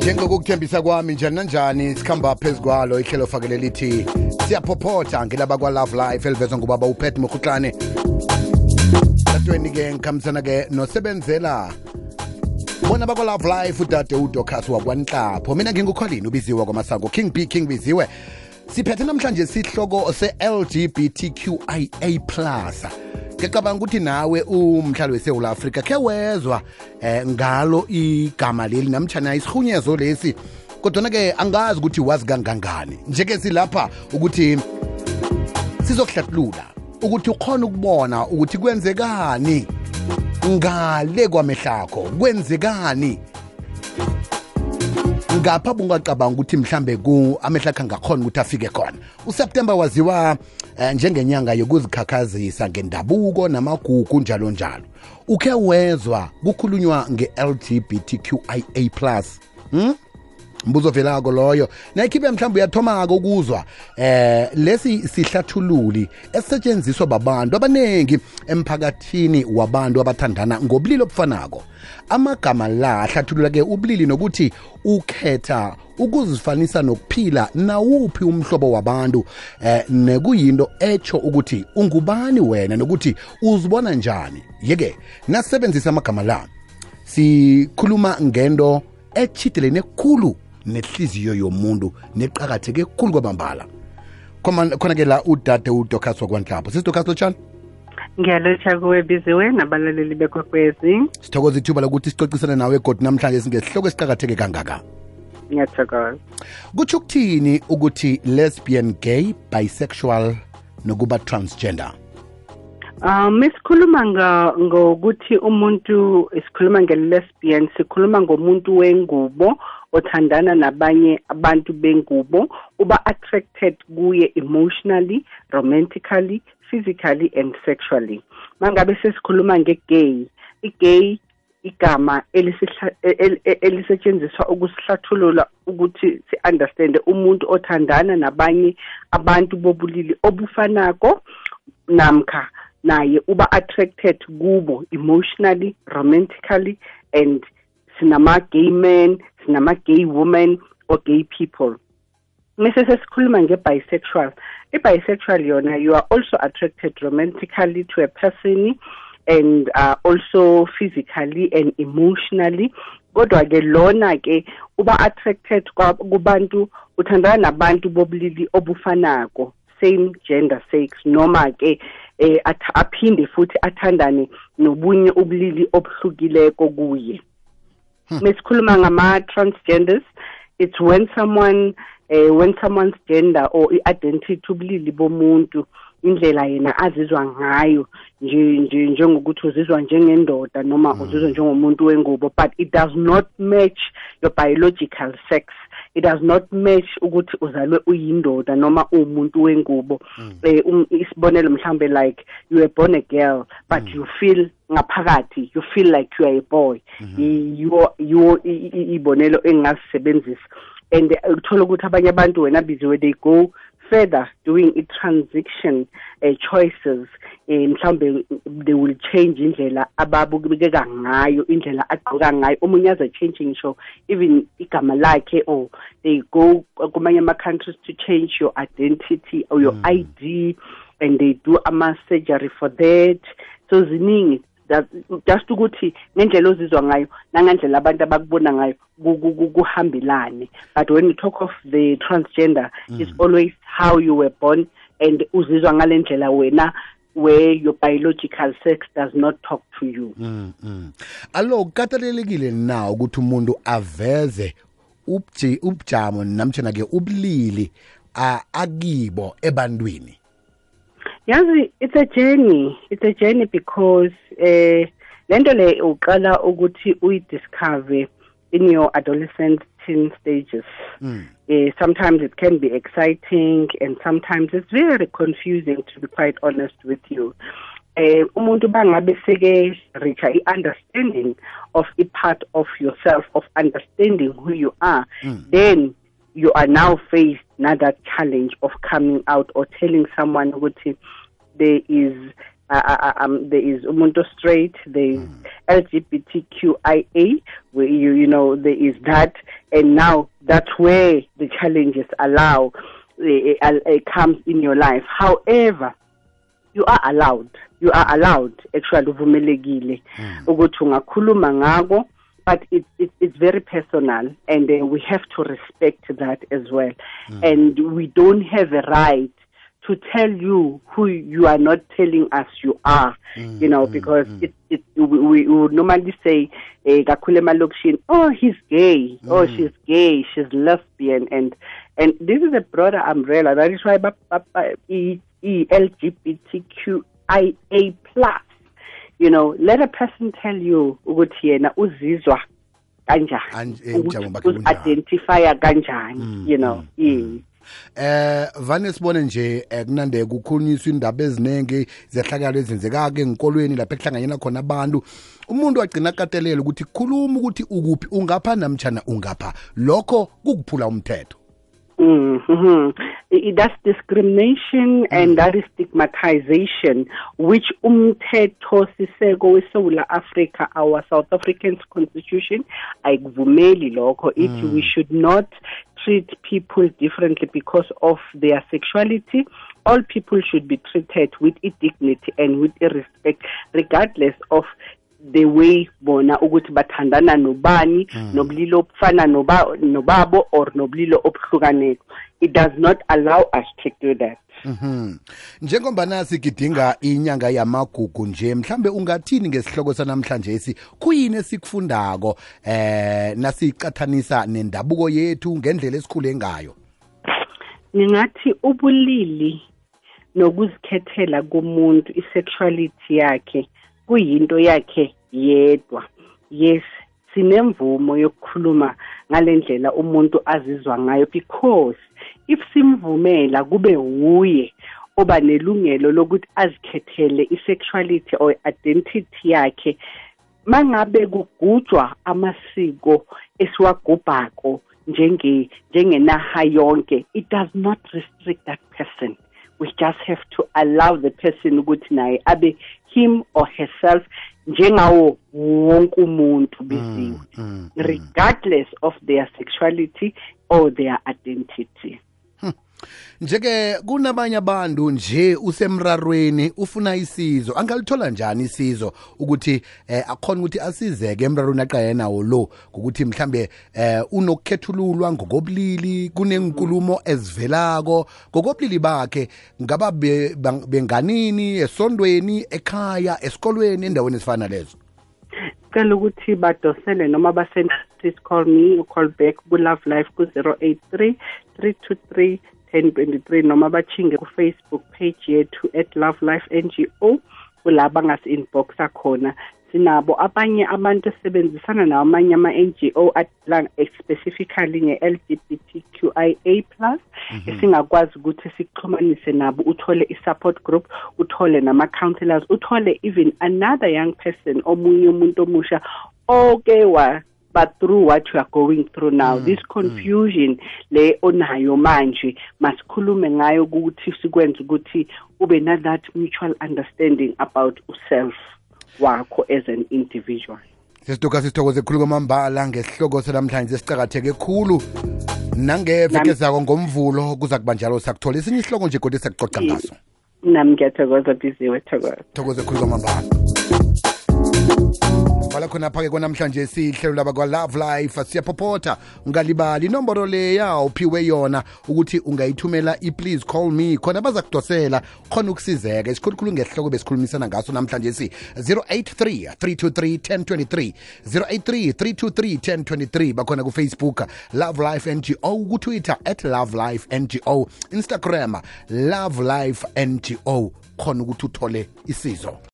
Njengokukuthembisa kwami njani nanjani sikhamba phezu kwalo ihlelo fakele lithi siyaphophotha ngelaba kwa-Love Life elivezwa ngubaba uPet Mokhutlane. Dadweni-ke ngikhambisana-ke nosebenzela bona bakwa-Love Life udade uDocas wakwanhlapho. Mina ngingukholini ubiziwe kwamasango King B King Biziwe. Siphethe namhlanje sihloko se-LGBTQIA+. Ngicabanga ukuthi nawe umhlali weSouth Africa ke wezwa ngalo igama leli namtjana isihunyezo lesi, kodwa ke angazi ukuthi wazi kangangani. Njeke silapha ukuthi sizokuhlathulula ukuthi ukhona ukubona ukuthi kwenzekani ngale kwamehlakho, kwenzekani ngapha bungacabanga ukuthi mhlambe amehlakho angakhona ukuthi afike khona. uSeptember waziwa njengenyanga yokuzikhakhazisa ngendabuko namagugu njalo njalo. Ukhe wezwa kukhulunywa nge-LGBTQIA+? Mbuzo velako loyo. Nayikhibe mhlawumbe uyathomako ukuzwa lesi sihlathululi esisetshenziswa babantu abanengi emphakathini wabantu abathandana ngobulili obufanako. Amagama la ahlathulula ke ubulili nokuthi ukhetha ukuzifanisa nokuphila nawuphi umhlobo wabantu, nekuyinto echo ukuthi ungubani wena nokuthi uzibona njani. Yeke nasebenzisa amagama la sikhuluma ngento echitelene khulu nehliziyo yomuntu neqakatheke khulu kwabambala. Khona ke la udade uDocas wakwanhlapho. Sisidocas lotshani? Ngiyalotsha kuwe Biziwe nabalaleli bekwekwezi. Sithokoza ithuba lokuthi sicocisane nawe kodwa namhlanje singesihloko esiqakatheke kangaka. Ngiyathokoza. Kutsho ukuthini ukuthi lesbian, gay, bisexual nokuba transgender? Mesikhuluma ngokuthi umuntu isikhuluma nge-lesbian, sikhuluma ngomuntu wengubo othandana nabanye abantu bengubo, uba attracted kuye emotionally, romantically, physically and sexually. Mangabe sesikhuluma nge-gay, i-gay igama elisetshenziswa ukusihlathulula ukuthi si-understand umuntu othandana nabanye abantu bobulili obufanako namkha naye uba attracted kubo emotionally, romantically, and sinama-gay men, sinama-gay women or gay people. Mese sesikhuluma nge-bisexual. I-bisexual yona, you are also attracted romantically to a person and also physically and emotionally. Kodwa ke lona ke uba attracted kubantu uthandana nabantu bobulili obufanako, same gender sex, noma ke aphinde futhi athandane nobunye ubulili obuhlukileko kuye. Mesikhuluma ngama-transgenders, it's when someone's gender or identity ubulili bomuntu, indlela yena azizwa ngayo njengokuthi uzizwa njengendoda noma uzizwa njengomuntu wengubo, but it does not match your biological sex. It does not match ukuthi uzalwe uyindoda noma umuntu wengubo. Isibonelo mhlambe like you were born a girl but you feel ngaphakathi you feel like you are a boy. Ibonelo engasebenzisa, and uthola ukuthi abanye abantu wena Biziwe they go further doing a transition choices, mhlambe they will change indlela ababukeka ngayo, indlela agqoka ngayo. Omunye aza changing show even igama lakhe, or they go kumanye ama-countries to change your identity or your ID, and they do ama-surgery for that. So ziningi just ukuthi ngendlela ozizwa ngayo nangendlela abantu abakubona ngayo kuhambelane. But when you talk of the transgender, it's always how you were born and uzizwa ngalendlela wena, where your biological sex does not talk to you. Allo kukatelelekile na ukuthi umuntu aveze ubujamo namtjana ke ubulili akibo ebantwini? Yazi, it's a journey because lento le uqala ukuthi uyidiscover in your adolescent teen stages. Sometimes it can be exciting and sometimes it's very confusing, to be quite honest with you. Umuntu bangabe seke reach understanding of a part of yourself, of understanding who you are, then you are now faced another challenge of coming out or telling someone ukuthi there is umuntu straight, there is LGBTQIA, where you know there is that, and now that's where the challenges comes in your life. However, you are allowed actually uvumelekile ukuthi ungakhuluma ngako, but it's very personal, and we have to respect that as well. And we don't have a right to tell you who you are not telling us you are, because we would normally say, oh, he's gay, oh, she's gay, she's lesbian, and this is a broader umbrella. That is why LGBTQIA+. Let a person tell you ukuthi yena uzizwa kanjani, identify kanjani, vane sibone nje kunande kukhulunyiswa indaba eziningi zehlakalo ezenzekake enkolweni lapha ekuhlanganyela khona abantu, umuntu wagcina akatelela ukuthi khuluma ukuthi ukuphi, ungapha namtjana ungapha, lokho kukuphula umthetho. That's discrimination and that is stigmatization, which umthetho siseko weSouth Africa, our South African Constitution, ayikuvumeli lokho. We should not treat people differently because of their sexuality. All people should be treated with dignity and with respect, regardless of the way bona ukuthi bathandana nobani, nobulili obufana nobabo or nobulili obuhlukaneko. It does not allow us to do that. Njengoba nasi gidinga inyanga yamagugu nje, mhlambe ungathini ngesihloko sanamhlanje esi kuyini esikufundako nasicathanisa nendabuko yethu ngendlela esikhule ngayo? Ngingathi ubulili nokuzikhethela komuntu, isexuality yakhe kuyinto yakhe yedwa. Yes, sinemvumo yokukhuluma ngalendlela umuntu azizwa ngayo, because if simvumela kube uye oba nelungelo lokuthi azikhethele isexuality or identity yakhe, mangabe kugujwa amasiko esiwagubhako njengenaha yonke, it does not restrict that person. We just have to allow the person ukuthi naye abe him or herself njengawo wonke umuntu biziwe, regardless of their sexuality or their identity. Njeke kunabanye abantu nje usemrarweni ufuna isizo, angalithola njani isizo ukuthi akhona ukuthi asizeke emrarweni aqayena nawo lo, ukuthi mhlambe unokukhethululwa ngokobulili, kunenkulumo ezivelako ngokobulili bakhe, ngaba benganini, esondweni, ekhaya, esikolweni, endaweni ezifana lezo? Cela ukuthi badosele noma basend please call me or call back ku Love Life ku 083 323 1023 noma bachinge ku Facebook page yethu @LoveLifeNGO, kulaba ngasi-inboxa khona. Sinabo abanye abantu esebenzisana namanye ama-NGO specifically nge-LGBTQIA+, esingakwazi ukuthi sikuxhumanise nabo, uthole i-support group, uthole nama-counselors, uthole even another young person, omunye umuntu omusha but through what you are going through now, this confusion le onayo manje, masikhulume ngayo ukuthi sikwenze ukuthi ube na that mutual understanding about yourself wakho as an individual. Sithokoze khulu kwamambala ngesihloko selamhlanje esicakatheke khulu, nangeveke zako ngomvulo kuza kuba njalo sakuthola esinye isihloko nje kodwa sakuxoxa ngaso. Nami ngiyathokoza Biziwe, thokoze khulu kwamambala. Wala khona phake kwanamhlanje sihlelo laba kwa Love Life, siyaphopotha, ungalibali inomboro leya uphiwe yona ukuthi ungayithumela please call me, khona baza kudosela khona ukusizeka. Isikhulukhulu ngesihloko besikhulumisana ngaso namhlanje 083 323 1023 083 323 1023, bakhona ku Facebook Love Life NGO, ku Twitter @LoveLifeNGO, Instagram Love Life NGO, khona ukuthi uthole isizo.